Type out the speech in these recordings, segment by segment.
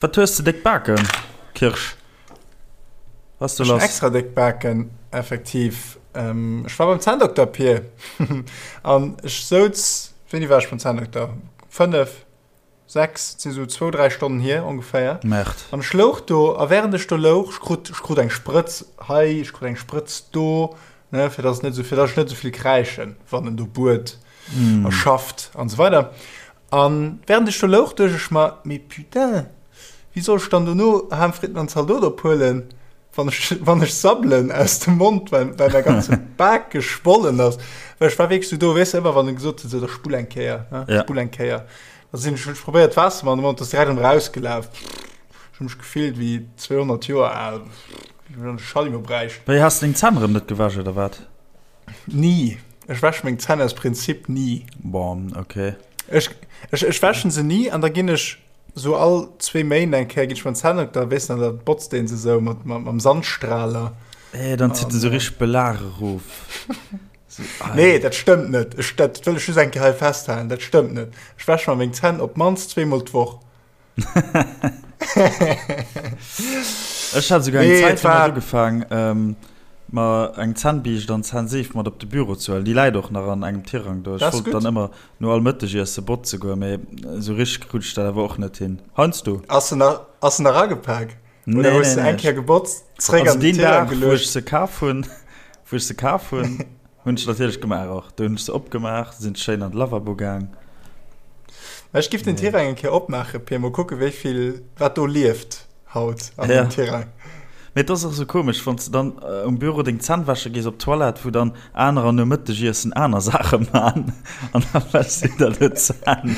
Wat hues de déck Baken, Kirsch? Was du lass? Extra déck Baken, effektiv. Ähm, ech war beim Zänndokter, Pir. An ech souz, wéini war ech beim Zänndokter? 5, 6, et si sou zwou, dräi Stonnen hier ongeféier. Merde. An ech louch do, a während ech do louch, ech krut, ech krut eng Sprëtz hei, ech krut eng Sprëtz do, ne, fir dass et net sou, fir dass ech net sou vill kräischen, wann en do buert a schafft an esou weider. An während ech do louch, duecht ech mer, mee putain, wéi soll ech dann dono Ham, Fritten an Zaldot ophuelen, wann ech, wann ech sabbelen aus dem Mond, well, well mäi ganze Bak geschwollen ass. Well ech war wierklech sou do, weess de, ëmmer wann e gesot huet, sou, da spull eng Kéier, ne, Ja. spull eng Kéier. Da sinn ech, hunn ech probéiert Waasser an de Mond, ass direkt erëm erausgelaf. Ech hu mech gefillt wéi 200 Joer al, wéi wann ech e Schallimo bräicht. Wéi, has de deng Zänn erëm net gewäsch oder wat? Ni. Ech wäsche meng Zänn aus Prinzip ni. Bon, okay. Ech, ech, ech wäschen se ni an da ginn ech so all zwee Méint eng Kéier ginn ech beim Zänndokter, weess de, da botzt deen se sou mat, mat, mam Sandstrahler. Eh, dann zitt en sou richteg Belag erof. So, nee, dat stëmmt net. Ech, dat wëll ech just eng Kéier hei festhalen, dat stëmmt net. Ech wäsche mer meng Zänn op d'mannst zweemol d'Woch. Ech hat souguer eng Zäit lang ugefaang, ähm, mer eng Zännbiischt an Zännseef mat op de Büro ze huelen. Déi läit och nach an engem Tirang do. Ech wollt dann ëmmer no all Mëttegiesse botze goen, mee esou richteg krut ech dat awer och net hin. Heiansdo. Ass se nach, ass se nach agepak? Oder hues de eng Kéier gebotzt, zréck an den Tirang geluecht? Also deen Dag, wou ech se kaf hunn, wou ech se kaf hunn, Hunn ech natierlech gemaach och. Do hunn ech se opgemaach, sinn schéin an de Lavabo gaang. Mä ech giff den Tirang eng Kéier opmaachen, Pir, mol kucken wéi vill, wat do lieft haut an dem Tirang. Mee et ass och sou komesch, wann s de dann um Büro deng Zänn wäsche gees op d'Toilette, wou dann anerer nom Mëttegiessen aner Saache man an da wäschs du der do d'Zänn.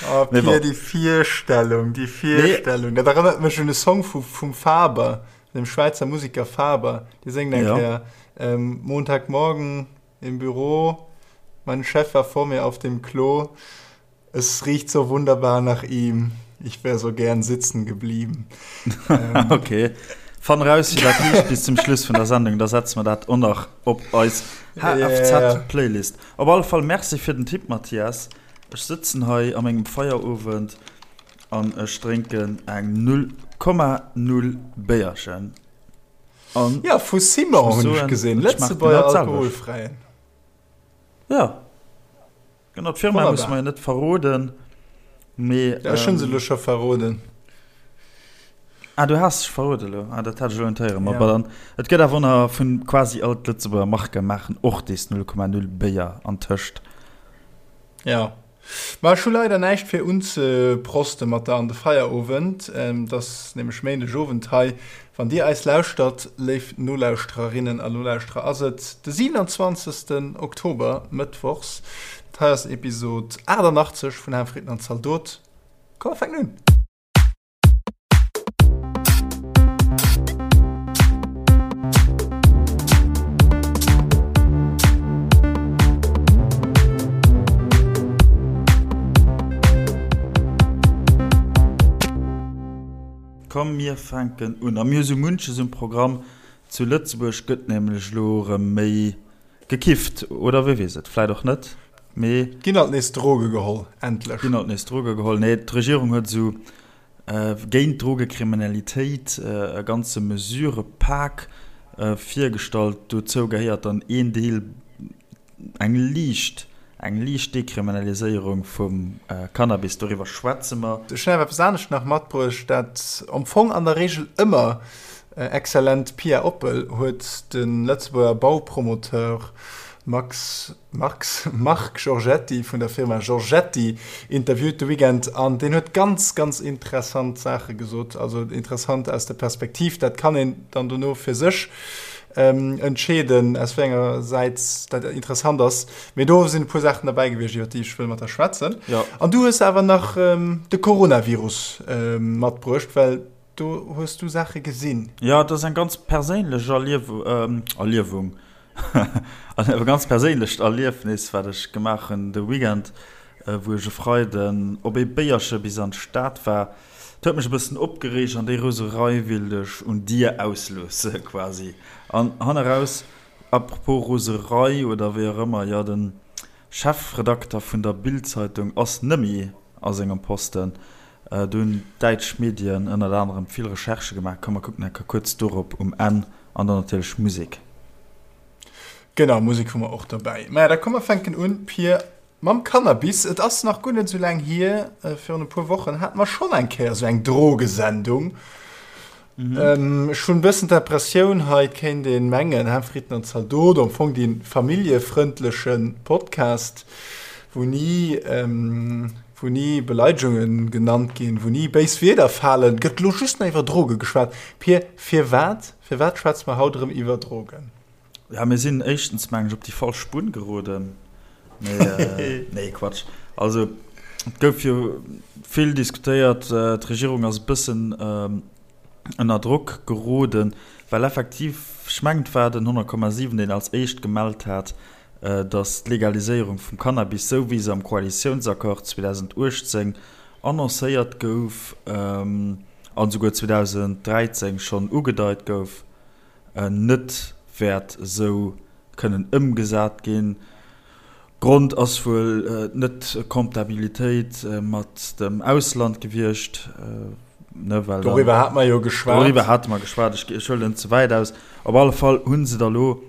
Oh Pir, déi Virstellung, déi Virstellung, dat erënnert mech un e Song vu vum Faber. Dem Schwäizer Musiker Faber, dee séngt eng Kéier, Montagmorgen im Büro, mein Chef war vor mir auf dem Klo, es riecht so wunderbar nach ihm, ich wär so gern sitzen geblieben. Ok, fann raus wéi dat heescht bis zum Schluss vun der Sendung, da setze mer dat och nach op eis HFZ-Playlist. Op alle Fall Merci fir den Tipp, Mathias. Ech sëtzen hei a mengem Feierowend. An ech drénken eng 0,0 Béierchen. An ja, vu Simon hunn ech gesinn, Lëtzebuerger alkoholfräien. Ja, genau, d'Firma musse mer jo net verroden, mee. Ja, ech hunn se elo scho verroden. Ah, du has sech verroden elo. Ah, dat hat ech elo net héieren. Ma dann, et gëtt awer nach vun quasi all d'Lëtzebuerger Marke maachen och dees 0,0 Béier antëscht. Ja. Ma ech hu leider näischt fir unzeprosten mat der an de Feierowend. Et ass nämlech Méindeg Owend hei. Wann dir eis lauschtert, léif Nolauschtererinnen a Nolauschterer, ass et de 27. Oktober, Mëttwochs. Dat hei ass Episod 88 vun Ham, Fritten an Zaldot. Komm mer fänken un! Komm mir fänken un. A mir hu sou munches um Programm. Zu Lëtzebuerg gëtt nämlech elo erëm méi gekifft, oder wie weess et, vläit och net, mee. Ginn alt nees Droge geholl, endlech. Ginn alt nees Droge geholl. Nee, d'Regierung huet esou géint d'Drogekriminalitéit e ganze Mesurëpak virgestallt. Dozou gehéiert dann een Deel, eng liicht, eng liicht Dekriminaliséierung vum Cannabis. Doriwwer schwätze mer. Ech hunn awer eppes anescht nach matbruecht, dat am Fong an der Regel ëmmer exzellent Pia Oppel huet de Lëtzebuerger Baupromoteur Max Marx, Marc Giorgetti vun der Firma Giorgetti interviewt de Weekend an deen huet ganz, ganz interessant Saache gesot. Also interessant aus der Perspektiv, dat kann een dann dono fir sech entscheeden, aus wéi enger Säit dat interessant ass. Mee do sinn e puer Saachen derbäi gewiescht, iwwer déi ech wëll mat der schwätzen. Ja. An du hues awer nach de Coronavirus matbruecht, well do hues du Saache gesinn. Jo, et ass eng ganz perséinlech Erliewung, An e ganz perséinlecht Erliefnis, wat ech gemaach hunn de Weekend, wou ech e Freiden op ee Béierche bis an d'Stad war. Et huet mech e bëssen opgereegt an déi Roserei willt ech un dir ausloosse quasi. An hanneraus, apropos Roserei oder wéi och ëmmer, jo, de Chefredakter vun der Bild-Zeitung ass nëmmi a sengem Posten. Do hunn däitsch Medien ënnert anerem vill Recherchë gemaach. Komm mer kucken enker kuerz dorop um Enn an dann natierlech Musek. Genau, Musek hu mer och dobäi. Maja, da komm mer fänken un, Pir, mam Cannabis. Et ass nach guer net esou laang hier, virun e puer Wochen hate mer schonn eng Kéier esou eng Drogesendung. Ech hunn e bëssen d'Impressioun, hei kéint ee mengen, Hä, Fritten an Zaldot, am Fong dee familljefrëndleche Podcast, wou ni, wou ni Beleidegunge genannt ginn, wou ni béis Wierder falen, gëtt elo just nach iwwer Droge geschwat. Pir, firwat, firwat schwätze mer haut erëm iwwer Drogen? Ja, mir sinn éischtens, mengen ech, op déi falsch Spuer geroden. Mee, nee, Quatsch. Also, et gouf jo vill diskutéiert. D'Regierung ass e bëssen ënner Drock geroden, well effektiv, ech mengen, et war den 100,7, deen als éischt gemellt hat, datt d'Legaliséierung vum Cannabis, esou wéi se am Koalitiounsaccord 2018 annoncéiert gouf an esouguer 2013 schonn ugedeit gouf, net wäert esou kënnen ëmgesat ginn. Grond ass wuel d'Net-Comptabilitéit mat dem Ausland gewiescht, ne, well dann. Doriwwer hate mer jo geschwat. Doriwwer hate mer geschwat. Ech, ech huelen ze wäit aus. Op alle Fall hu se da lo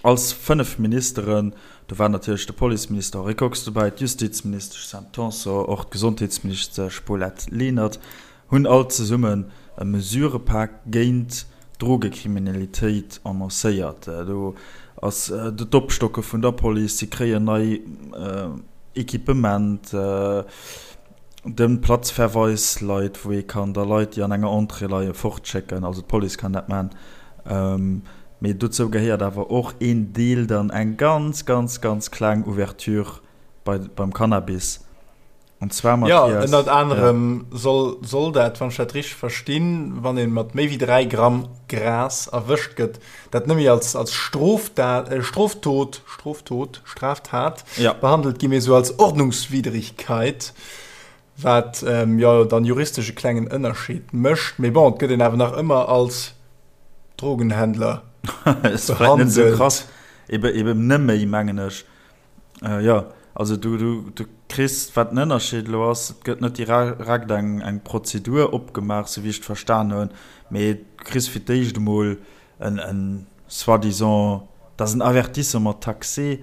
als 5 Ministeren, do war natierlech de Policeminister Henri Kox dobäi, d'Justizministesch Sam Tanson, och d'Gesondheetsministesch Paulette Lenert, hunn all zesummen e Mesurepak géint d'Drogekriminalitéit annoncéiert. Do ass d'Opstocke vun der Police, si kréien nei Equipement, de Platzverweis leit, wou ee kann da Leit, déi an enger Entrée leien, fortschécken, also d'Police kann dat maachen. Mee dozou gehéiert awer och een Deel dann eng ganz, ganz, ganz kleng Ouverture beim Cannabis. An zwar, Mathias. Jo, ënnert anerem ja. soll, soll dat, wann ech dat richteg verstinn, wann ee mat méi wéi 3 Gramm Gras erwëscht gëtt, dat net méi als, als Strofdat, äh, Stroftot, Stroftot, Straftat ja. behandelt gi, mee sou als Ordnungswidrigkeit, wat ähm, jo dann juristesch e klengen Ënnerscheed mécht. Mee bon, et gëtt een awer nach ëmmer als Drogenhändler behandelt. Ist vielleicht net sou krass, ebe, eben net méi, mengen ech. Jo, also du, du, du kriss, wat den Ënnerscheed elo ass, et gëtt net direkt eng, eng Prozedur opgemaach, sou wéi ech et verstan hunn, mee du kriss fir d'éischt emol en, en soi-disant, dat ass en Avertissement taxé,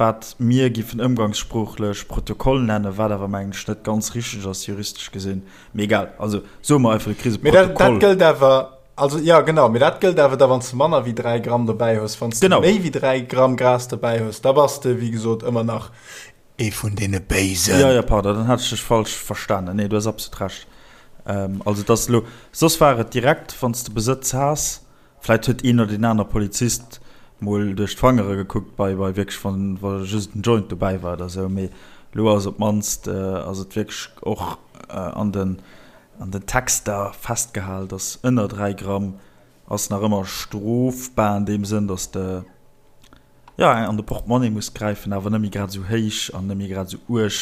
wat mir giffen ëmgangssproochlech Protokoll nennen, wat awer, mengen ech, net ganz richteg ass, juristesch gesinn. Mee egal, also soe mer einfach, du kriss e Protokoll. Mee dat, dat gëllt awer Also ja genau, mee dat gëllt awer da wann s de manner wéi 3 Gramm dobäi hues. Wann s de méi wéi 3 Gramm Gras dobäi hues, da bass de wéi gesot ëmmer nach ee vun deene Béisen. Jo, jo, pardon, dann hat ech dech falsch verstanen. Nee, du hues absolut Recht. Also et ass elo, soss war et direkt, wann s de Besëtz has, vläit huet een oder deen aner Polizist mol duerch d'Fangere gekuckt bei, bei wierklech, wann, wa just en Joint dobäi war oder esou, mee elo ass op d'mannst, ass et wierklech och an den An den Texter festgehal, dass ënner 3 Gramm ass nach ëmmer strofbar an deem Sënn, dass de jo an de Portemonnaie muss gräifen, awer net méi grad esou héich an net méi grad esou uerg.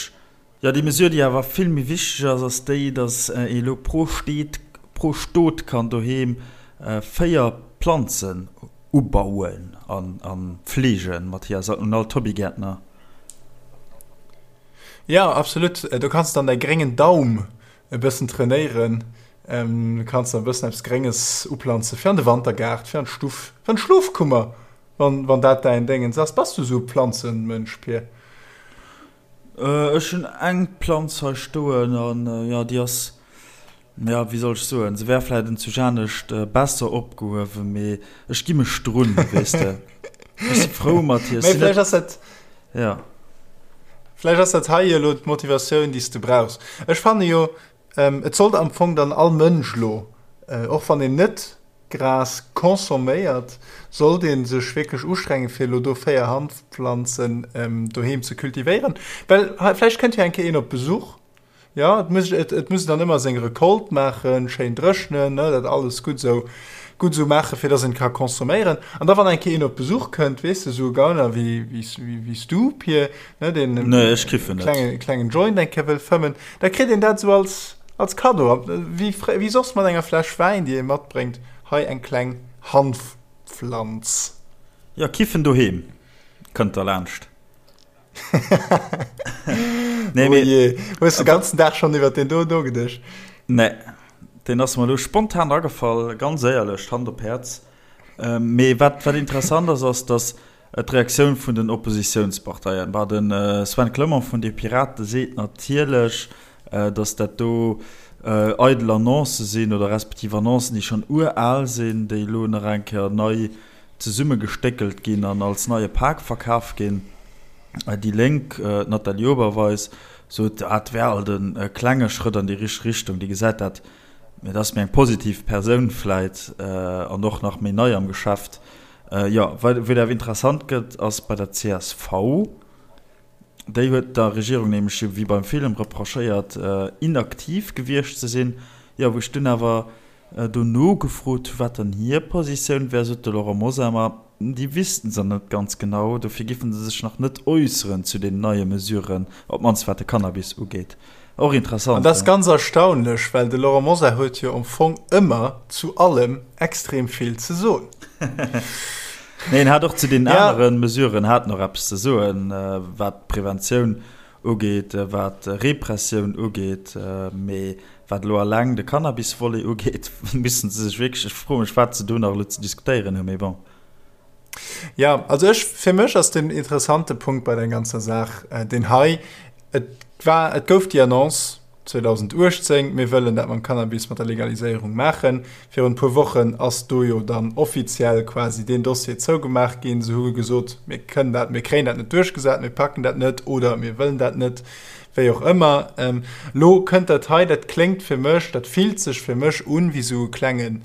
Jo, déi Mesure, déi awer vill méi wichteg ass, ass déi, dass ee elo pro Steet, pro Stot kann doheem 4 Planzen ubauen a fleegen. Mathias, un all d'Hobbygäertner. Jo, absolut. Do kanns de dann däi gréngen Daum e bëssen trainéieren. Du kanns dann e bëssen eppes Grénges uplanze fir an de Wantergaart, fir an d'Stuff, fir an d'Schlofkummer, wann, wann dat däin Déngens ass. Bass du esou e Planzenmënsch, Pir? Ech hunn eng Planz hei stoen an jo, déi ass Ja, wéi soll ech soen, se wär vläit enzujanescht besser opgehuewen, mee ech gi mech drun, weess de. Ech si frou mat hir. Mee vläicht ass dat. Ja. Vläicht ass dat hei jo elo d'Motivatioun, déi s de brauchs. Ech fanne jo, et sollt am Fong dann all Mënsch elo, och wann een net Gras consomméiert, sollt ee sech wierklech ustrengen, fir elo do 4 Hanfpflanzen doheem ze kultivéieren. Well vläicht kënnt jo eng Kéier een op Besuch. Jo, et muss, et, et muss dann ëmmer seng Recolte maachen, schéin dréchnen, ne, dat alles gutt esou, gutt esou maachen, fir dass een ka consomméieren. An da wann eng Kéier een op Besuch kënnt, weess de, esou e Gauner wéi, wéi, wéi s du, Pir, ne, deen e Nee, ech kiffen net. klenge, klengen Joint eng Kéier wëll fëmmen, da kritt een dat esou als, als Kaddo, wéi, wéi soss mat enger Fläsch Wäin, déi ee matbréngt, hei eng kleng Hanfpflanz. Jo, kiffen doheem, kënnt der laanscht. Nee, oh je. Hues de ganzen Dag schonn iwwer deen do nogeduecht? Nee, deen ass mer elo spontan agefall, ganz éierlech, Hand op Häerz. Mee wat, wat interessant ass, ass, datt d'Reaktioun vun den Oppositiounsparteien, bah, de Sven Clement vun de Pirate seet natierlech, datt dat do eidel Annoncë sinn oder respektiv Annoncen, déi schonn ural sinn, déi elo nach eng Kéier nei zesummegestéckelt ginn an als neie Pak verkaf ginn. Déi Lénk, d'Nathalie Oberweis, sot, dat wär alt e klenge Schrëtt an déi richteg Richtung. Déi gesäit dat, mee dat ass méi eng positiv Persoun vläit an och nach méi nei am Geschäft. Jo, wou et awer interessant gëtt, ass bei der csv. Déi huet der Regierung nämlech jo wéi beim Film reprochéiert, inaktiv gewiescht ze sinn. Jo, wou ech dunn awer Dono gefrot hu wat dann hir Positioun wär, sot de Laurent Mosar, ma déi wüssten se net ganz genau, dofir giffen se sech nach net äusseren zu den neie Mesuren, op d'mannst wat de Cannabis ugeet. Och interessant. An dat ass ganz erstaunlech, well de Laurent Mosar huet jo am Fong ëmmer zu allem extrem vill ze soen. Nee, en hat och zu deenen anere Mesuren hat en och eppes ze soen, wat d'Preventioun ugeet, wat Repressioun ugeet, mee wat elo alleng de Cannabis-Volet ugeet, missten se sech wierklech, ech froe mech, wat se do nach elo ze diskutéieren hunn, mee bon. Jo, also ech, fir mech ass den interessante Punkt bei der ganzer Saach deen hei, Et war, et gouf déi Annonce 2018, mir wëllen dat mam Cannabis, mat der Legaliséierung maachen. Virun e puer Wochen ass do jo dann offiziell quasi deen Dossier zougemaach ginn. Se hu gesot, mir kënnen dat, mir kréien dat net duerchgesat, mir packen dat net oder mir wëllen dat net, wéi och ëmmer. Elo kënnt dat hei, dat kléngt fir mech, dat fillt sech fir mech un wéi esou e klenge,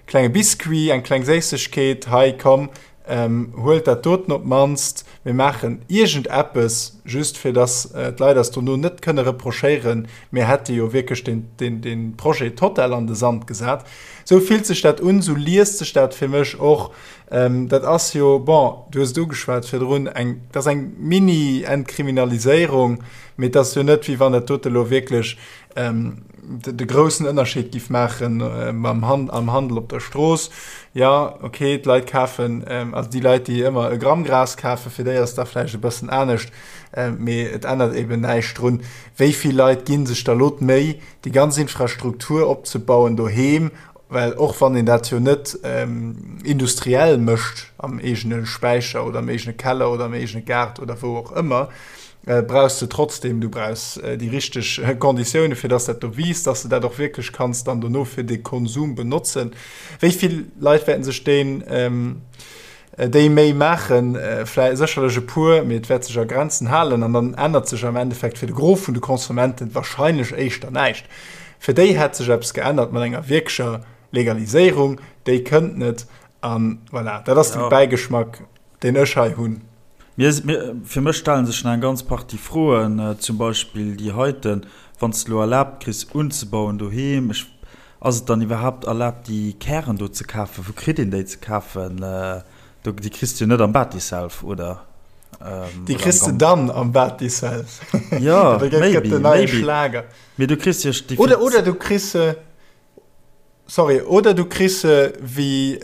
klenge Biscuit, eng kleng Séissegkeet, hei komm, Huelt dat doten op d'mannst, mir maachen iergend eppes, just fir dass d'Leit eis dono net kënne reprochéieren, mir hätte jo wierklech dee Projet total an de Sand gesat. Esou fillt sech dat un, esou liest sech dat fir mech och. Dat ass jo, bon, du hues et ugeschwat virdrun, eng, dat ass eng Mini-Entkriminaliséierung, mee et ass jo net, wéi wann dat dote elo wierklech de groussen Ënnerscheed giff maachen mam Han am Handel op der Strooss. Ja, okay, d'Leit kafen, also déi Leit, déi ëmmer e Gramm Gras kafen, fir déi ass da vläicht e bëssen anescht, mee et ännert eben näischt drun. Wéi vill Leit gi sech da lo d'Méi, déi ganz Infrastruktur opzebauen doheem, well och wann een dat jo net industriell mécht am eegene Späicher oder am eegene Keller oder am eegene Gaart oder wou och ëmmer, brauchs de trotzdem, du brauchs déi richteg Konditioune fir dass dat do wiisst, dass de dat och wierklech kanns dann dono fir de Konsum benotzen. Wéi vill Leit wäerten sech deen déi Méi maachen? Vläi sécherlech e puer, mee et wäert sech a Grenzen halen an dann ännert sech am Endeffekt fir de Gros vun de Konsumenten wahrscheinlech éischter näischt. Fir déi hätt sech eppes geännert mat enger wierklecher Legaliséierung, déi kënnt net an voilà, dat ass de Bäigeschmack. Deen ech hei hunn. Mir, mir, fir mech stellen sech nach eng ganz Partie Froen, zum Beispill déi heiten, Wann s de elo erlaabt kriss unzebauen doheem, ech, ass et dann iwwerhaapt erlaabt déi Kären do ze kafen? Wou kritt een déi ze kafen? Do, déi kriss de jo net am Batiself, oder? Déi kriss de dann am Batiself. Jo, maybe, maybe. Mee du kriss jo. Oder, oder du kriss se. Sorry, oder du kriss se wéi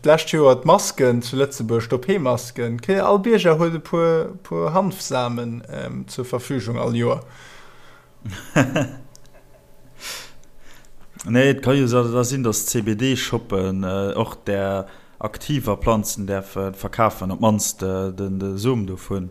d'lescht Joer d'Masken zu Lëtzebuerg, d'OP-Masken. All Bierger huet e puer, puer Hanfsamen zur Verfügung all Joer. Nee, et ka jo da sinn, datt d'CBD-Shoppen och där aktiver Planzen däerfe verkafen, op d'mannst de Som dovun.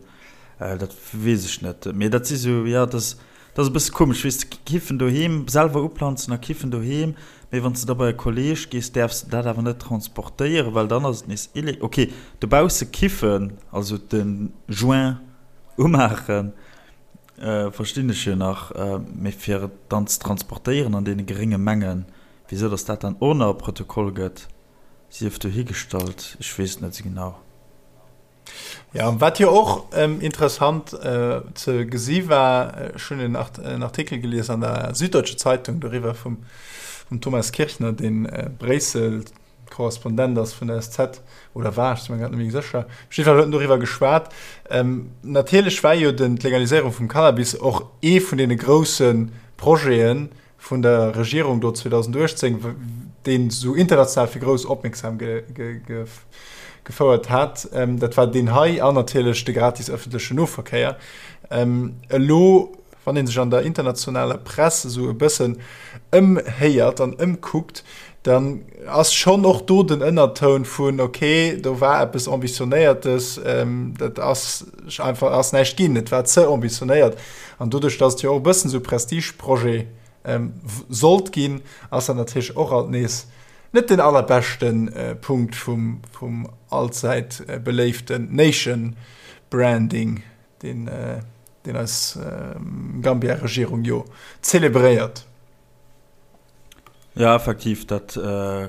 Dat weess ech net. Mee dat si sou, jo, dat ass. Dat ass e bësse komesch, weess de, kiffen doheem, selwer uplanzen a kiffen doheem, mee wann s de da bei e Kolleeg gees, däerfs de dat awer net transportéieren, well dann ass et nees ille-. Ok, dobausse kiffen, also de Joint umaachen, verstinn ech jo nach, mee fir et dann ze transportéieren an deene gerénge Mengen, wisou datt dat dann och nach e Protokoll gëtt, sief dohigestallt, ech weess et net esou genau. Ja, wat jo och ähm, interessant äh, ze gesi war, ech hunn en, Art en Artikel gelies an der Süddeutsche Zeitung doriwwer vum, vum Thomas Kirchner, deen äh, Bréissel Korrespondent ass vun der SZ oder war, ech si mir grad net méi sécher. Op jidde Fall huet en doriwwer geschwat. Ähm, natierlech war jo den, d'Legaliséierung vum Cannabis och ee vun deene grousse Projeten, vun der Regierung do 2018, deen esou international fir grouss Opmierksam gefouert hat, dat war deen hei an natierlech de gratis ëffentlechen Noverkéier. Elo, Wann ee sech an der internationaler Press esou e bëssen ëmhéiert an ëmkuckt, dann ass schonn och do den Ënnertoun vun, okay, do war eppes Ambitionéiertes, dat ass einfach ass näischt ginn, et war ze ambitionéiert. An doduerch, datt et jo och e bëssen esou e Prestigeprojet sollt ginn, ass dat natierlech och alt nees net den allerbeschte Punkt vum vum allzäit beléiften Nation Branding, deen deen eis Gambia-Regierung jo zelebréiert. Jo, effektiv, dat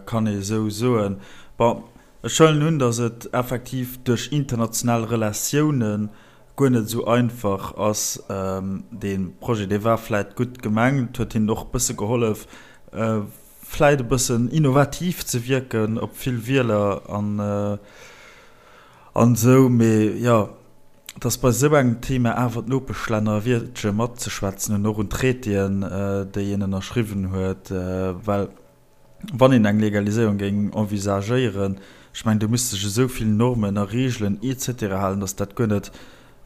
kann ee esou soen. Bon, ech huelen un, datt et effektiv duerch international Relatioune guer net esou einfach ass. Dee Projet, dee war vläit gutt gemengt, huet hinnen och e bësse gehollef, vläit e bëssen innovativ ze wierken op vill Wieler an esou. Mee jo, dass bei esou engem Thema awer d'Nopeschlänner e Wiertche matzeschwätzen hunn, och un Traitéen, déi een ënnerschriwwen huet, well wann een eng Legaliséierung géing envisagéieren, ech mengen, do misste sech esou vill Normen a Regeln et cetera halen, dass dat guer net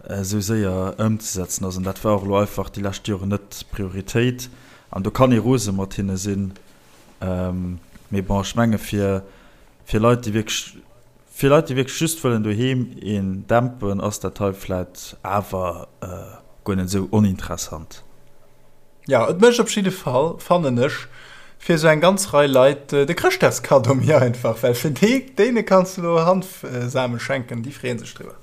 esou séier ëmzesetzen ass. An dat war och elo einfach déi lescht Joren net d'Prioritéit. An do kann ee rose mat hinne sinn, mee bon, ech menge fir Leit, déi wierklech Fir Leit déi wierklech just wëllen doheem een dämpen ass dat hei vläit awer guer net esou oninteressant. Jo, et mécht op jidde Fall, fannen ech, fir esou eng ganz Rei Leit de Chrëschtdagskaddo méi einfach, well fir déi, déine kanns de elo Hanfsame schenken, déi freeë sech driwwer.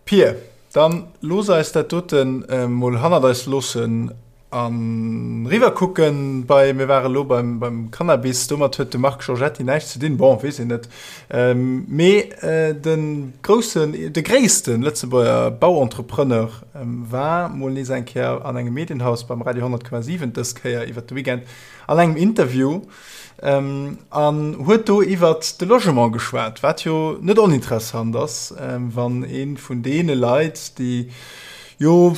Pir, dann looss eis dat doten mol hannert eis loossen An riwwer kucken bei, mir ware lo beim, beim Cannabis, domat huet de Marc Giorgetti näischt ze dinn, bon, weess een net, mee de groussen, de gréisste Lëtzebuerger Bauentrepreneur war mol nees eng Kéier an engem Medienhaus beim Radio 100,7, dës Kéier iwwert de Weekend an engem Interview an huet do iwwert de Logement geschwat, wat jo net oninteressant ass, wann ee vun deene Leit, déi jo,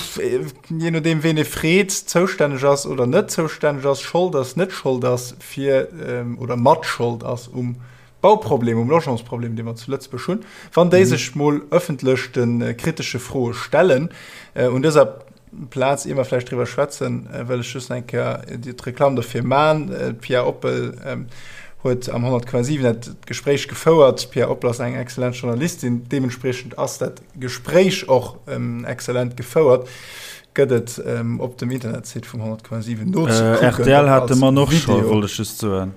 jee nodeem ween ee freet, zoustänneg ass oder net zoustänneg ass, Schold ass, net Schold ass fir oder mat Schold ass um Bauproblem, um Logementsproblem, dee mer zu Lëtzebuerg hunn, wann déi sech mol ëffentlech de kritesche Froe stellen. Un dëser Plaz, ier mer vläicht driwwer schwätzen, wëll ech just eng Kéier d'Reklamm dofir man. D'Pia Oppel huet am 100,7 dat Gespréich gefouert. D'Pia Oppel ass eng exzellent Journalistin, deementspriechend ass dat Gespréich och exzellent gefouert. Gëtt et op dem Internetsite vum 100,7 nozekucken. Rtl hat de Mann och scho, wollt ech just soen.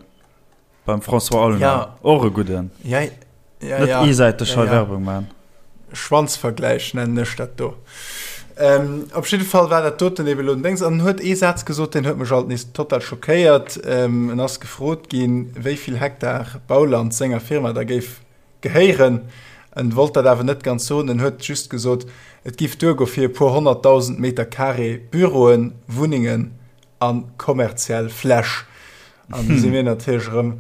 Beim François Aulner. Ja. Och e gudden. Ja, ja, Net ja. eesäiteg ja, hei ja. Werbung man. Schwanzvergläich nennen ech dat do. Ähm, op jidde Fall war dat doten eben elo den Déngs. An en huet ee Saz gesot, deen huet mech alt nees total schockéiert. Ähm, en ass gefrot ginn, wéi vill Hektar Bauland senger Firma da géif gehéieren. En wollt dat awer net ganz soen, en huet just gesot, et giff duergo fir e puer 100.000 Meter carré Büroen, Wunnengen a kommerziell Fläch. An du si mir natierlech erëm,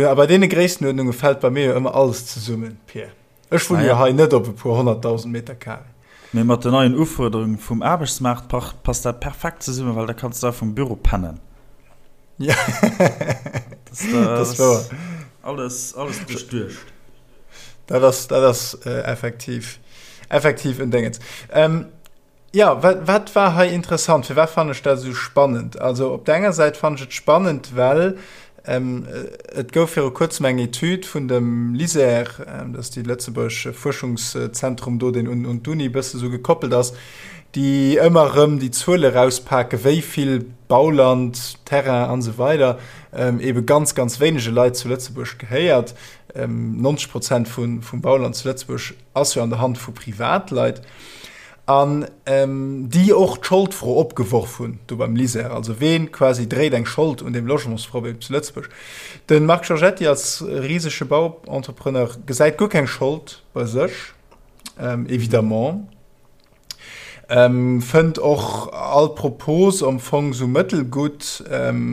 a bei deene Gréisstenuerdnunge fält bei mir jo ëmmer alles zesummen, Pir. Ech wunne jo hei net op e puer 100.000 Meter carré. Mee mat den neien Ufuerderunge vum Aarbechtsmaart passt dat perfekt zesummen, well da kanns du da vum Büro pennen. Ja, dat ass wouer. Alles, alles duerchduecht. Dat ass, dat ass effektiv, effektiv en Déngens. Jo, wat, wat war hei interessant? Firwat fannen ech dat esou spannend? Also op der enger Säit fannen ech et spannend, well ähm, et gouf viru kuerzem eng Etüd vun dem LISER, ähm, dat ass déi lëtzebuergesch Fuerschungszentrum do, deen un, un d'Uni e bësse sou gekoppelt ass, déi ëmmer erëm déi Zuele rauspaken, wéi vill Bauland, Terrain an esou weider ähm, ebe ganz, ganz wéinege Leit zu Lëtzebuerg gehéiert. Ähm, 90 Prozent vun, vum Bauland zu Lëtzebuerg ass jo an der Hand vu Privatleit. An déi och d'Scholdfro opgeworf hunn do beim LISER, also ween quasi dréit eng Schold un deem Logementsproblem zu Lëtzebuerg. De Marc Giorgetti als risege Bauentrepreneur gesäit guer keng Schold bei sech, évidemment, fënnt och all Propos am Fong sou mëttelgutt,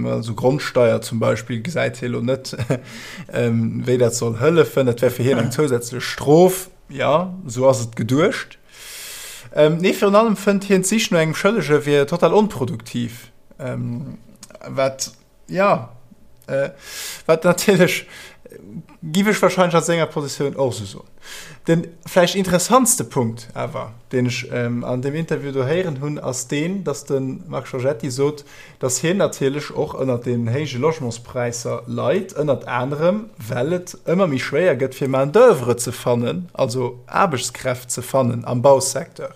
also Grondsteier zum Beispill gesäit hie lo net, wéi dat soll hëllefen, dat wär fir hien eng zousätzlech Strof, jo, sou ass et geduecht. Ähm, nee, virun allem fënnt hien d'Sich no engem Schëllege wier total onproduktiv. Ähm, wat, ja, äh, wat natierlech. Giff ech wahrscheinlech a senger Positioun och esou soen. Den vläicht interessantste Punkt awer, deen ech an deem Interview do héieren hunn, ass deen, datt de Marc Giorgetti sot, datt hien natierlech och ënnert deenen héije Logementspräisser leit, ënnert anerem well et ëmmer méi schwéier gëtt fir Main d'oeuvre ze fannen, also Aarbechtskräft ze fannen am Bausecteur.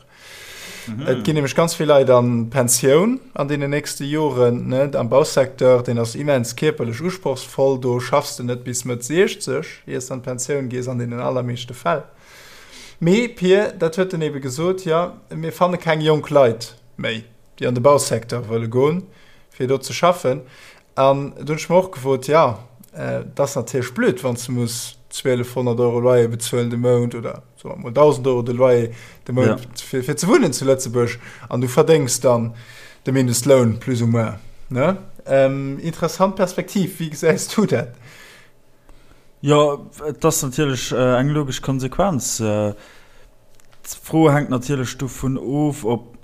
Et ginn nämlech ganz vill Leit an d'Pensioun an deenen nächste Joren, ne? Am Bausecteur, deen ass immens kierperlech usprochsvoll, do schaffs de net bis Mëtt 60, iers de an d'Pensioun gees an deenen allermeeschte Fäll. Mee, Pir, dat huet en ebe gesot, jo, mir fanne keng jonk Leit méi, déi an de Bausecteur wëlle goen, fir do ze schaffen. An do hunn ech mer och gefrot, jo, et ass natierlech blöd, wann s de muss 1.200 Euro Loyer bezuelen de Mount oder soe mer mol 1.000 Euro de Loyer de Mount ja. fir, fir ze wunnen zu Lëtzebuerg an du verdéngs dann de Mindestloun plus ou moins. Ne? Ähm, interessant Perspektiv, wéi gesäis du dat? Jo, et ass natierlech äh, eng logesch Konsequenz. Äh, D'Fro hänkt natierlech dovun of, ob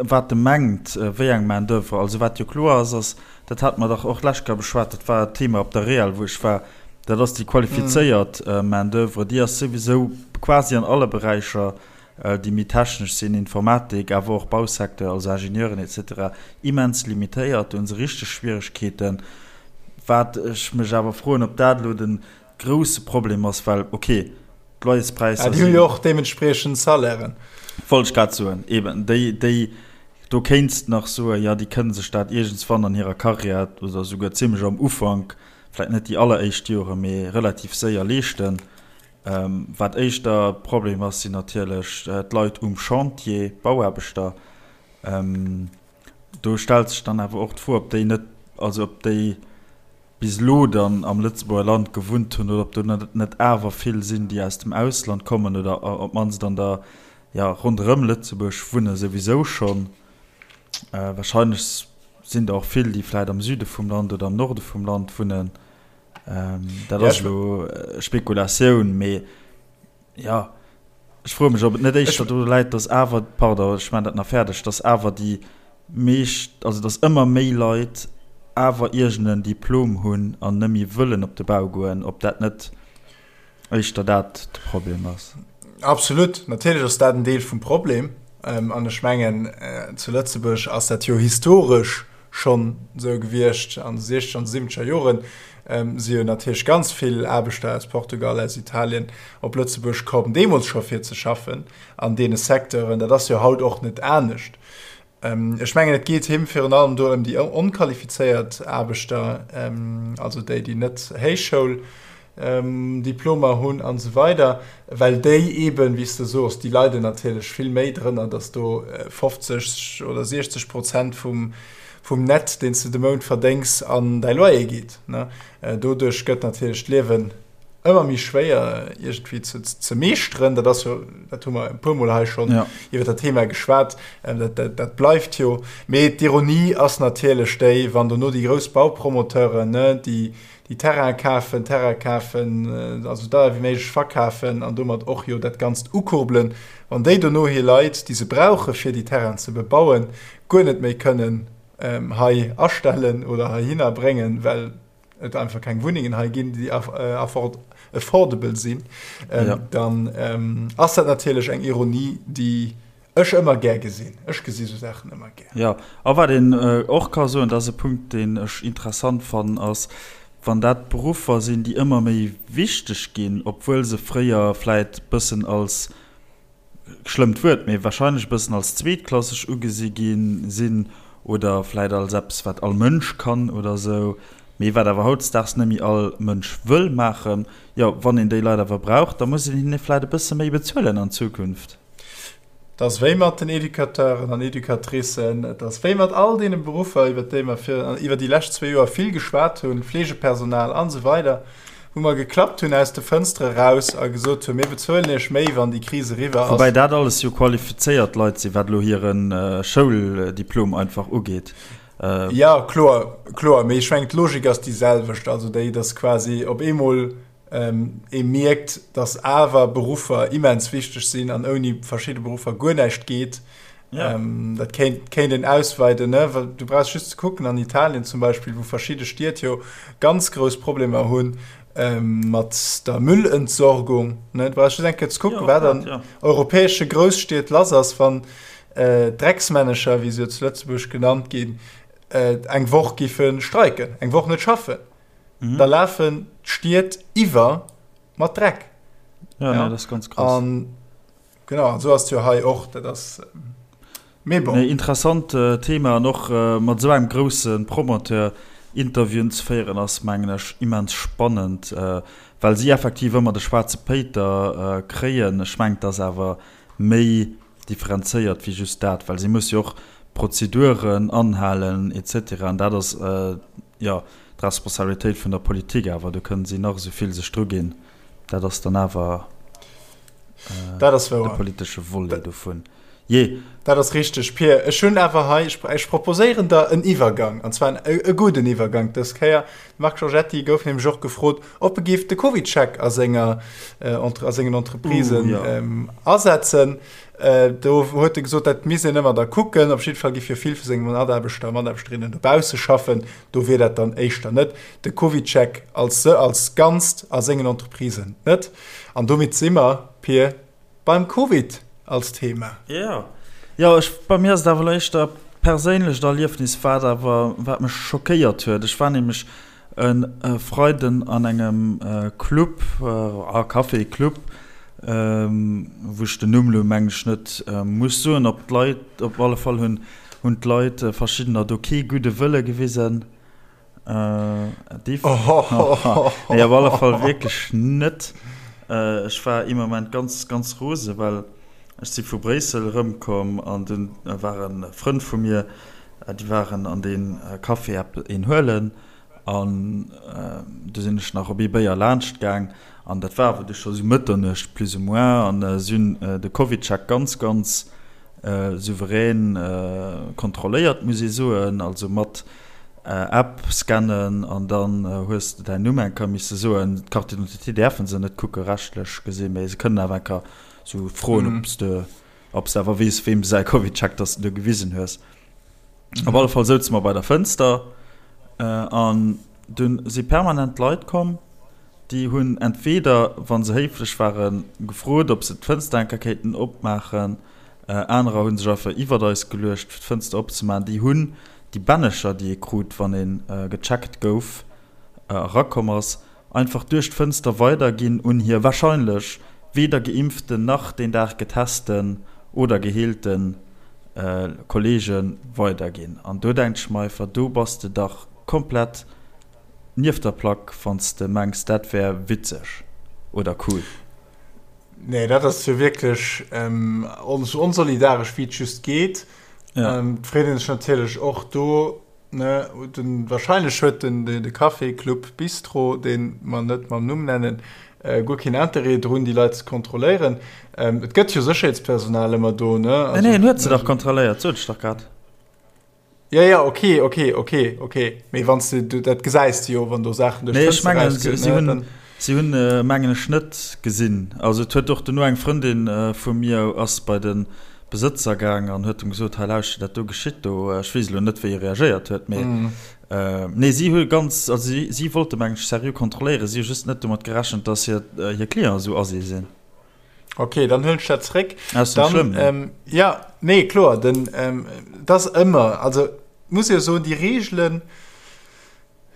wat e mengt, wéi eng Main d'oeuvre. Also wat jo kloer ass, ass, dat hate mer dach och d'lescht Kéier beschwat, dat war d'Thema op der REAL, wou ech war, dat ass déi qualifizéiert Main d'oeuvre, déi ass souwisou quasi an alle Beräicher, déi méi technesch sinn, Informatik, awer och Bausecteur, also Ingenieuren et cetera, immens limitéiert. Do hu se richteg Schwieregkeeten. Wat ech mech awer froen, ob dat elo de grousse Problem ass, well ok, d'Loyerspräisser sinn. Déi hu jo och deementspriechend Salairen. Wollt ech grad soen, eben déi, déi, do kéints de nach soen, jo, déi kënne sech dat iergendswann an hirer Karriär oder souguer zimlech am Ufank, vläicht net déi alleréischt Joren, mee relativ séier leeschten. Wat éischter Problem ass, sinn natierlech d'Leit um Chantier, d'Bauaarbechter. Do stellt sech dann awer och d'Fro, ob déi net, also ob déi bis elo dann am Lëtzebuerger Land gewunnt hunn oder ob do net awer vill sinn, déi aus dem Ausland kommen oder op d'mannst an der, jo, ronderëm Lëtzebuerg wunne souwisou schonn. Wahrscheinlech sinn der och vill, déi vläicht am Süde vum Land oder am Norde vum Land wunnen. Dat ass elo Spekulatioun, mee jo, ech froe mech, ob et net éischter doru läit, dass awer, pardon, ech maachen dat nach fäerdeg, dass awer déi meescht, also dass ëmmer méi Leit awer iergend en Diplom hunn an net méi wëllen op de Bau goen, ob dat net éischter dat de Problem ass. Absolut, natierlech ass dat en Deel vum Problem. An ech mengen, zu Lëtzebuerg ass dat jo historesch schonn esou gewiescht an de siechzeger an de siwwenzeger Joren si jo natierlech ganz vill Aarbechter aus Portugal, aus Italien op Lëtzebuerg komm, deemools scho fir ze schaffen an deene Secteuren. Dat ass jo haut och net anescht. Ech mengen, et geet him virun allem do ëm déi onqualifizéiert Aarbechter, also déi, déi net Héichschoul Diplomer hunn an esou weider, well déi eeben, wéi s de soos, déi leiden natierlech vill méi drënner, datt do 50 oder 60 Prozent vum, vum Net, deen s de de Mount verdéngs, an däi Loyer geet. Doduerch gëtt natierlech d'Liewen ëmmer méi schwéier iergendwéi ze, ze meeschteren. Dat ass jo, dat hu mer e puermol hei schonn iwwer dat Thema geschwat, dat, dat, dat bleift jo. Mee d'Ironie ass natierlech déi, wann dono déi grouss Baupromoteuren, déi, déi Terraine kafen, Terrain kafen, also deier wéi méiglech verkafen an domat och jo dat Ganzt ukurbelen, wann déi dono hir Leit, déi se brauche fir déi Terrainen ze bebauen, guer net méi kënnen hei astellen oder heihinner bréngen, well et einfach keng Wunnengen hei ginn, déi affordable sinn, dann ass dat natierlech eng Ironie, déi Ech ëmmer gär gesinn. Ech gesi sou Saachen ëmmer gär. Jo, a wat een och ka soen, dat ass e Punkt, deen ech interessant fannen, ass, wann dat Beruffer sinn, déi ëmmer méi wichteg ginn, obwuel se fréier vläit bëssen als, schlëmmt Wuert, mee wahrscheinlech e bëssen als zweetklasseg ugesi gi sinn oder vläit als eppes, wat all Mënsch kann oder esou, mee wat awer hautdesdaags net méi all Mënsch wëll maachen. Jo, wann een déi Leit awer brauch, da muss een hinne vläit e bësse méi bezuelen an Zukunft. Et ass wéi mat den Educateuren an Educatricen, et ass wéi mat all deene Beruffer, iwwer déi mer fir, iwwer déi lescht zwee Joer vill geschwat hunn, Fleegepersonal an esou weider, wou mer geklappt hunn aus de Fënstere raus a gesot hunn, mir bezuelen Iech méi, wann déi Kris eriwwer ass. Woubäi dat alles jo qualifizéiert Leit sinn, wat elo hire Schouldiplom einfach ugeet. Jo, kloer, kloer, mee ech mengen, d'Logik ass déi selwecht, also déi, dass quasi op eemol Ee mierkt, dass awer Beruffer immens wichteg sinn an ouni verschidde Beruffer guer näischt geet. Ja. Dat kéint, kéint een ausweiden, ne? Well du brauchs just ze kucken an Italien zum Beispill, wou verschidde Stied jo ganz grouss Problemer hunn. Mat der Müllentsorgung, ne? Du brauchst just eng Kéier ze kucken, wat an europäesche Grousstied lass ass, wann d'Drecksmännecher, wéi se jo zu Lëtzebuerg genannt ginn, eng Woch giffe streiken, eng Woch net schaffen. Da lafen d'Stied iwwer mat Dreck. Ja, nee, dat ass ganz krass. An genau, an esou ass et jo hei och. Dat ass, mee bon. Nee, interessant Thema an och mat esou engem grousse Promoteur Interviewen ze féieren ass mengen ech immens spannend, well si effektiv ëmmer de schwaarze Péiter kréien. Ech mengen et ass awer méi differenzéiert wéi just dat, well si musse jo och Prozeduren anhalen et cetera an dat ass jo d'Responsabilitéit vun der Politik awer. Do kënnen si nach esou vill sech druginn, dat ass dann awer de politesche Volet dovun. Jee. Dat ass richteg, Pir. Ech hunn awer hei, ech proposéieren der en Iwwergang, an zwar e gudden Iwwergang dës Kéier. De Marc Giorgetti gouf nämlech och gefrot, ob e géif de CovidCheck a senger, a sengen Entreprisen asetzen. Do huet e gesot, dat misst een ëmmer da kucken. Op jidde Fall géif jo vill vu senge Mataarbechter a Mataarbechterinnen dobausse schaffen. Do wier dat dann éischter net de CovidCheck als, als Ganzt a sengen Entreprisen net. An domat si mer, Pir, Beim Covid als Thema. Jo, jo, ech, bei mir ass et awer elo éischter perséinlecht Erliefnis, wat awer, wat mech schockéiert huet. Ech war nämlech e Freiden an engem Club, a Café, Club, wou ech den Numm elo mengen ech net muss soen. Op d'Leit, op alle Fall hunn, hunn d'Leit, verschiddener do kee gudde Wëlle gewisen. Äh, nee, op alle Fall wierklech net. Äh, ech war ee Moment ganz, ganz rose, well ech si vu Bréissel erëmkomm an dunn ware Frënn vu mir, déi waren an dee Café epp een huelen an du sinn ech nach op ee Béier laanscht gaang an dat war awer du scho sou Mëtternuecht plus ou moins an si hunn de CovidCheck ganz, ganz souverän kontrolléiert, muss ee soen, also mat App scannen an dann hues de däin Numm eng Kéier misse soen. D'Carte d'identité däerfe se net kucke rechtlech gesinn, mee se kënnen awer eng Kéier sou froen, ob s de ob s de awer weess, weem säi CovidCheck dass de do gewisen hues. Op alle Fall souze mer bei der Fënster an dunn si permanent Leit komm, déi hunn entweder, wa se héiflech waren, gefrot, ob se d'Fënster eng Kéier kéinten opmaachen. Anerer hu sech einfach iwwert eis geluecht, fir d'Fënster opzemaachen. Déi hunn déi Bännecher, déi ee krut, wann ee gecheckt gouf, erakomm ass, einfach duerch d'Fënster weiderginn un hir warscheinlech weder geimpften nach deen Dag getesten oder geheelte Kolleege weiderginn. An do denkt ech mer einfach, do bass de dach komplett nieft der Plack, wann s de mengs, dat wär witzeg oder cool. Nee, dat ass jo wierklech esou onsolidaresch, wéi et just geet. Ja. Ähm, freet een sech natierlech och do, ne, den, wahrscheinlech huet den, de, de Café, Club, Bistro, deen mer net mam Numm nennen, äh, guer keen Interêt drun, déi Leit ze kontrolléieren. Ähm, et gëtt jo Sécherheetspersonal ëmmer do, ne? Also, nee, nee, en huet se dach kontrolléiert, sot ech dach grad. Ja, ja, okay, okay, okay, okay. Mee wann du, du dat gesäis du jo, wann do Saachen duerch Nee, ech mengen, si, si hunn, si hunn, äh, mengen ech, net gesinn. Also et huet och duerno eng Frëndin äh, vu mir ass bei de Besëtzer gaang an huet em gesot, hei lauschter, dat do geschitt do. Ech weess elo net, wéi e reagéiert huet, mee mm. äh, nee, si hu ganz, also si, si wollte mengen ech seriö kontrolléieren, si hu just net domat gerechent, dass hir, äh, hir Clienten esou assi sinn. Okay, dann huelen ech dat zréck. Ass net schlëmm. Ähm, ja, nee, kloer, den, ähm, das ëmmer, also muss jo soen, déi Reegelen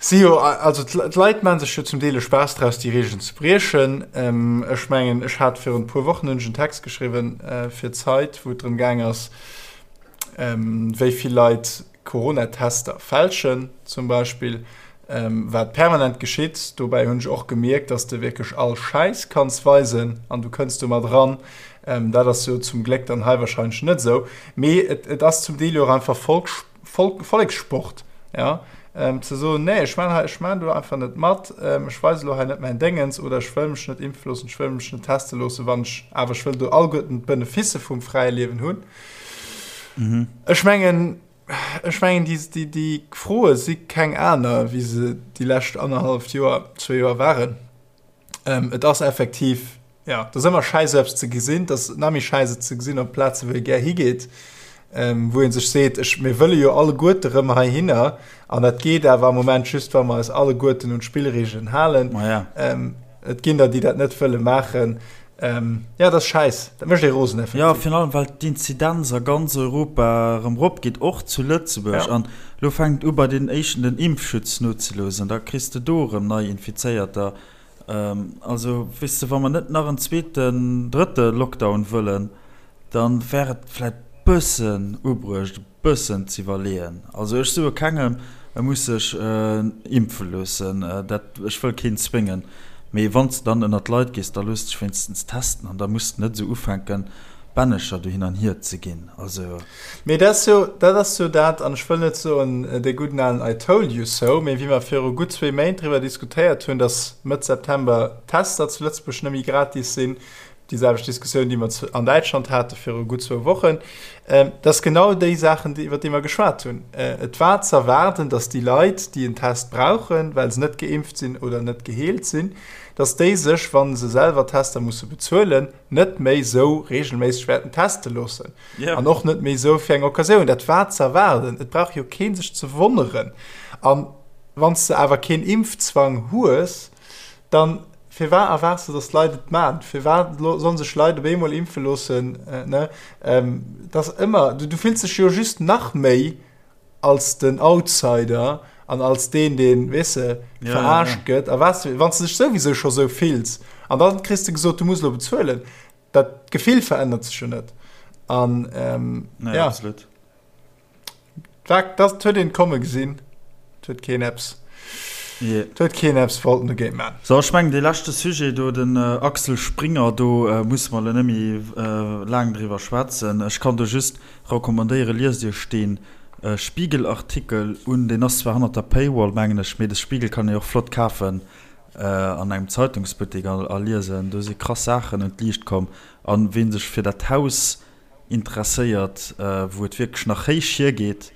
si jo, also d'Leit maache sech jo zum Deel e Spaass draus, déi Reegelen ze briechen. Ähm, ech mengen, ech hat virun e puer Wochen hunn ech en Text geschriwwen äh, fir d'Zeit, wou et drëm gaang ass, ähm, wéi vill Leit Coronatester fälschen zum Beispill, wat permanent geschitt. Dobäi hunn ech och gemierkt, dass de wierklech all Schäiss kanns weisen an du kënns domat eran. Dat ass jo zum Gléck dann hei wahrscheinlech net esou. Mee et, et ass zum Deel jo och einfach Volk, Volk, Vollekssport, ja, ze soen, nee, ech maan hei, ech maan do einfach net mat, ech weise lo hei net mäin Déngens oder ech wëll mech net impfe loossen, ech wëll mech net teste loossen, wann ech awer, ech wëll do alleguerten d'Beneficë vum fräie Liewen hunn. Ech mengen, ech mengen déi, déi, déi Froe si keng aner, wéi se déi lescht annerhalleft Joer, zwee Joer waren. Ähm, et ass effektiv, ja, et ass ëmmer schäiss eppes ze gesinn, et ass nach méi schäiss et ze gesinn op Plaze wou ee gär higeet. wou ee sech seet, ech, mir wëlle jo alleguerte rëm heihinner an dat geet awer am Moment just, wa mer eis alleguerten un d'Spillregeln halen. Ma ja. Et ginn der, déi dat net wëlle maachen. Ja, dat ass schäiss. Dat mécht ee rosen, effektiv. Jo, virun allem, well d'Inzidenz a ganz Europa erëm eropgeet, och zu Lëtzebuerg. An elo fänkt u bei den éischten den Impfschutz nozeloossen. Da kriss de do erëm nei Infizéierter. Also, weess de, wa mer net nach en zweeten, drëtte Lockdown wëllen, da wär et vläicht bëssen ubruecht, e bëssen z'iwwerleeën. Also, ech soe kengem, e muss sech impfe loossen, dat, ech wëll keen zwéngen. Mee wann s de dann ënnert d'Leit gees, da looss dech wéinstens testen an da muss de net esou ufänken, Bännecher do hin an hier ze ginn. Also. Mee dat ass jo, dat ass jo dat, an ech wëll net soen dee gudden alen I told you so, mee wéi mer viru gutt zwee Méint driwwer diskutéiert hunn, datt Mëtt September d'Tester zu Lëtzebuerg net méi gratis sinn, déi selwecht Diskussioun, déi mer an Däitschland hate viru gutt zwou Wochen, dat ass genau déi Saachen, iwwer déi mer geschwat hunn. Et war z'erwaarden, datt déi Leit, déi en Test brauchen, well se net geimpft sinn oder net geheelt sinn, datt déi sech, wa se selwer Tester musse bezuelen, net méi sou regelméisseg wäerten teste loossen yeah. an och net méi sou fir eng Occasioun. Dat war ze erwaarden. Et brauch jo keen sech ze wonneren. An wann s de awer keen Impfzwang hues, dann firwat erwaards de, dass d'Leit et maan? Firwat sollen sech Leit op eemol impfe loossen? Äh, ne? Ähm, dat ëmmer, du, du fills dech jo just nach méi als den Outsider an als deen, deen, weess de, ja, verarscht ja, ja. gëtt. A was, wann du dech souwisou scho sou fills an dann kriss du gesot, du muss lo bezuelen, dat Gefill verännert sech jo net. An ähm, nee, ja. Absolut. Dat, dat huet een komme gesinn. Dat huet keen Apps. Yeah. Dat huet keen Apps wollten dogéint man. So, ech mengen, dee leschte Sujet do, den äh, Axel Springer, do äh, musse mer lo net méi äh, laang driwwer schwätzen. Ech kann do just Recommandéiere liest iech deen Spiegel Artikel un, deen ass zwar hannert der Paywall mengen ech, mee de Spiegel kann ee och flott kafen an engem Zeitungsbuttek a liesen. Do si krass Saachen un d'Liicht komm an ween sech fir dat Haus interesséiert wou et wierklech nach héich hiergeet,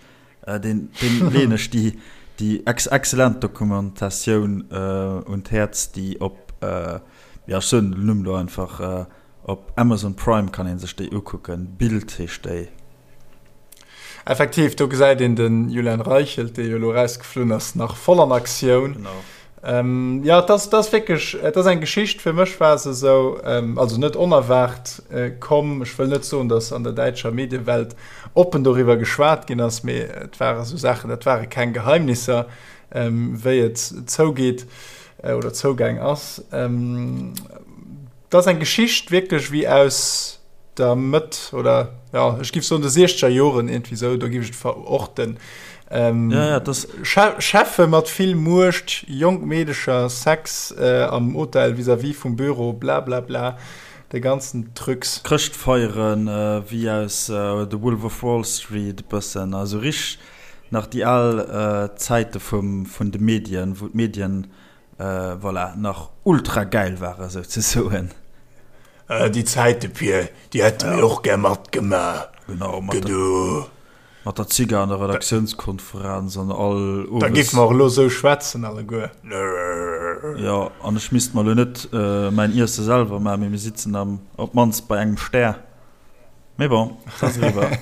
deen leeën ech déi déi excellent Dokumentatioun un d'Häerz déi op, jo ech soen den Numm elo einfach, Op Amazon Prime kann een sech déi ukucken, Bild heescht déi. Effektiv, do gesäit een den Julian Reichelt, dee jo elo erausgeflunn ass, nach voll an Aktioun. Genau. Ähm, ja, et ass, et ass wierklech, et ass eng Geschicht, fir mech war se esou, ähm, also net onerwaart äh, komm. Ech wëll net soen, datt an der däitscher Mediewelt oppen doriwwer geschwat ginn ass, mee et ware sou Saachen, dat ware keng Geheimnisser, ähm, wéi et zougeet äh, oder zougaang ass. Ähm, Dat ass eng Geschicht wierklech wéi aus der Mëtt oder ja ech giff soen de siechzeger Joren iergendwéi sou, do giff ech et verorten. Ähm, ja, ja, das Cheffe mat vill Muecht, jonk Meedecher, Sex äh, am Hotel vis-à-vis vum Büro, bla bla bla, de ganzen Trucs. Chrëschtfeieren äh, wéi aus äh, The Wolf of Wall Street e bëssen, also richteg nach déi al äh, Zäite vum, vun de Medien, wou d'Medien Voilà, nach ultra gäil ware souzesoen. Déi Zäite Pir, déi hätte mir och gär matgemaach. Genau, mat der Zigar an der Redaktiounskonferenz an all owes. Da géife mer och elo esou schwätzen alleguer. Jo, an ech misst mer elo net mäin Iesse selwer maachen, mee mir sitzen am, op d'mannst bei engem Stär. Mee bon, et ass eriwwer.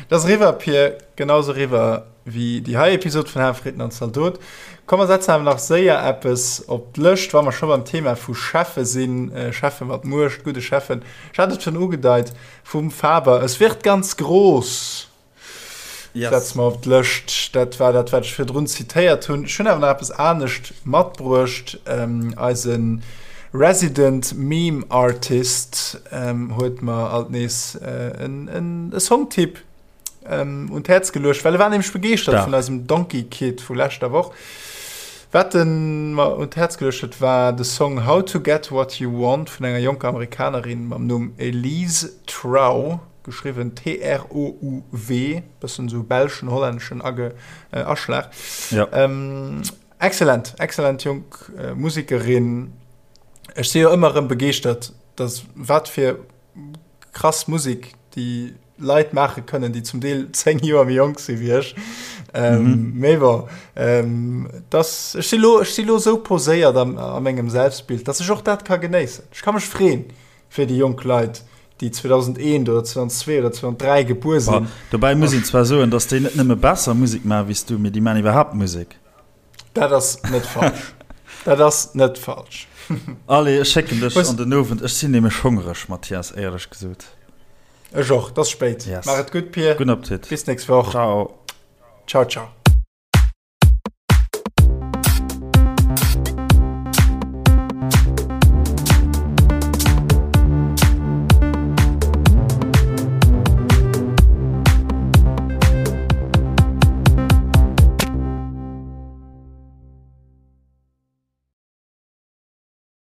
Et ass eriwwer, Pir, genau sou eriwwer wéi déi hei Episod vun Haferiten an Zaldot. Komm mer setzen awer nach séier eppes op d'Lëscht, wa mer scho beim Thema vu Cheffe sinn, Cheffe mat Muecht, gudde Cheffen. Ech hat et schonn ugedeit, vum Faber, Es wird ganz groß. Yes. Setze mer op d'Lëscht. Dat war dat, wat ech virdrun zitéiert hunn. Ech hunn awer nach eppes anescht matbruecht. Ähm, eise Resident Meme Artist ähm, huet mer alt nees äh, en, en, e Songtipp ähm, un d'Häerz geluecht, well e war nämlech begeeschtert Stark. vun eisem Donkey Kid vu leschter Woch. Wat en mer un d'Häerz geluecht huet, war de Song How to Get What You Want vun enger jonker Amerikanerin mam Numm Elise Trow. Geschriwwen T-R-O-U-W, bëssen esou belschen, hollänneschen Age, Aschlag. Ja. Ähm, excellent, excellent jonk äh, Musekerin. Ech si jo ëmmer erëm begeeschtert, dass wat fir krass Musek déi Leit maache kënnen, déi zum Deel 10 Joer méi jonk si wéi ech. Ähm, mhm. Mee bon, ähm, das, ech si lo, ech si lo sou poséiert am, a mengem Selbstbild, dass ech och dat ka genéissen. Ech ka mech freen fir déi jonk Leit. Déi 2001 oder 2002 oder 2003 gebuer sinn. Dobäi muss een zwar soen, datt déi net nëmme besser Musek maachen wéi s du, mee déi maachen iwwerhaapt Musek. Dat ass net falsch. Dat ass net falsch. Allez, ech schécken dech an den Owend. Ech sinn nämlech hongreg, Mathias, éierlech gesot. Ech och. Et ass spéit. Yes. Maach et gutt, Pir. Gudden Appetit. Bis d'nächst Woch. Ciao. Ciao, ciao.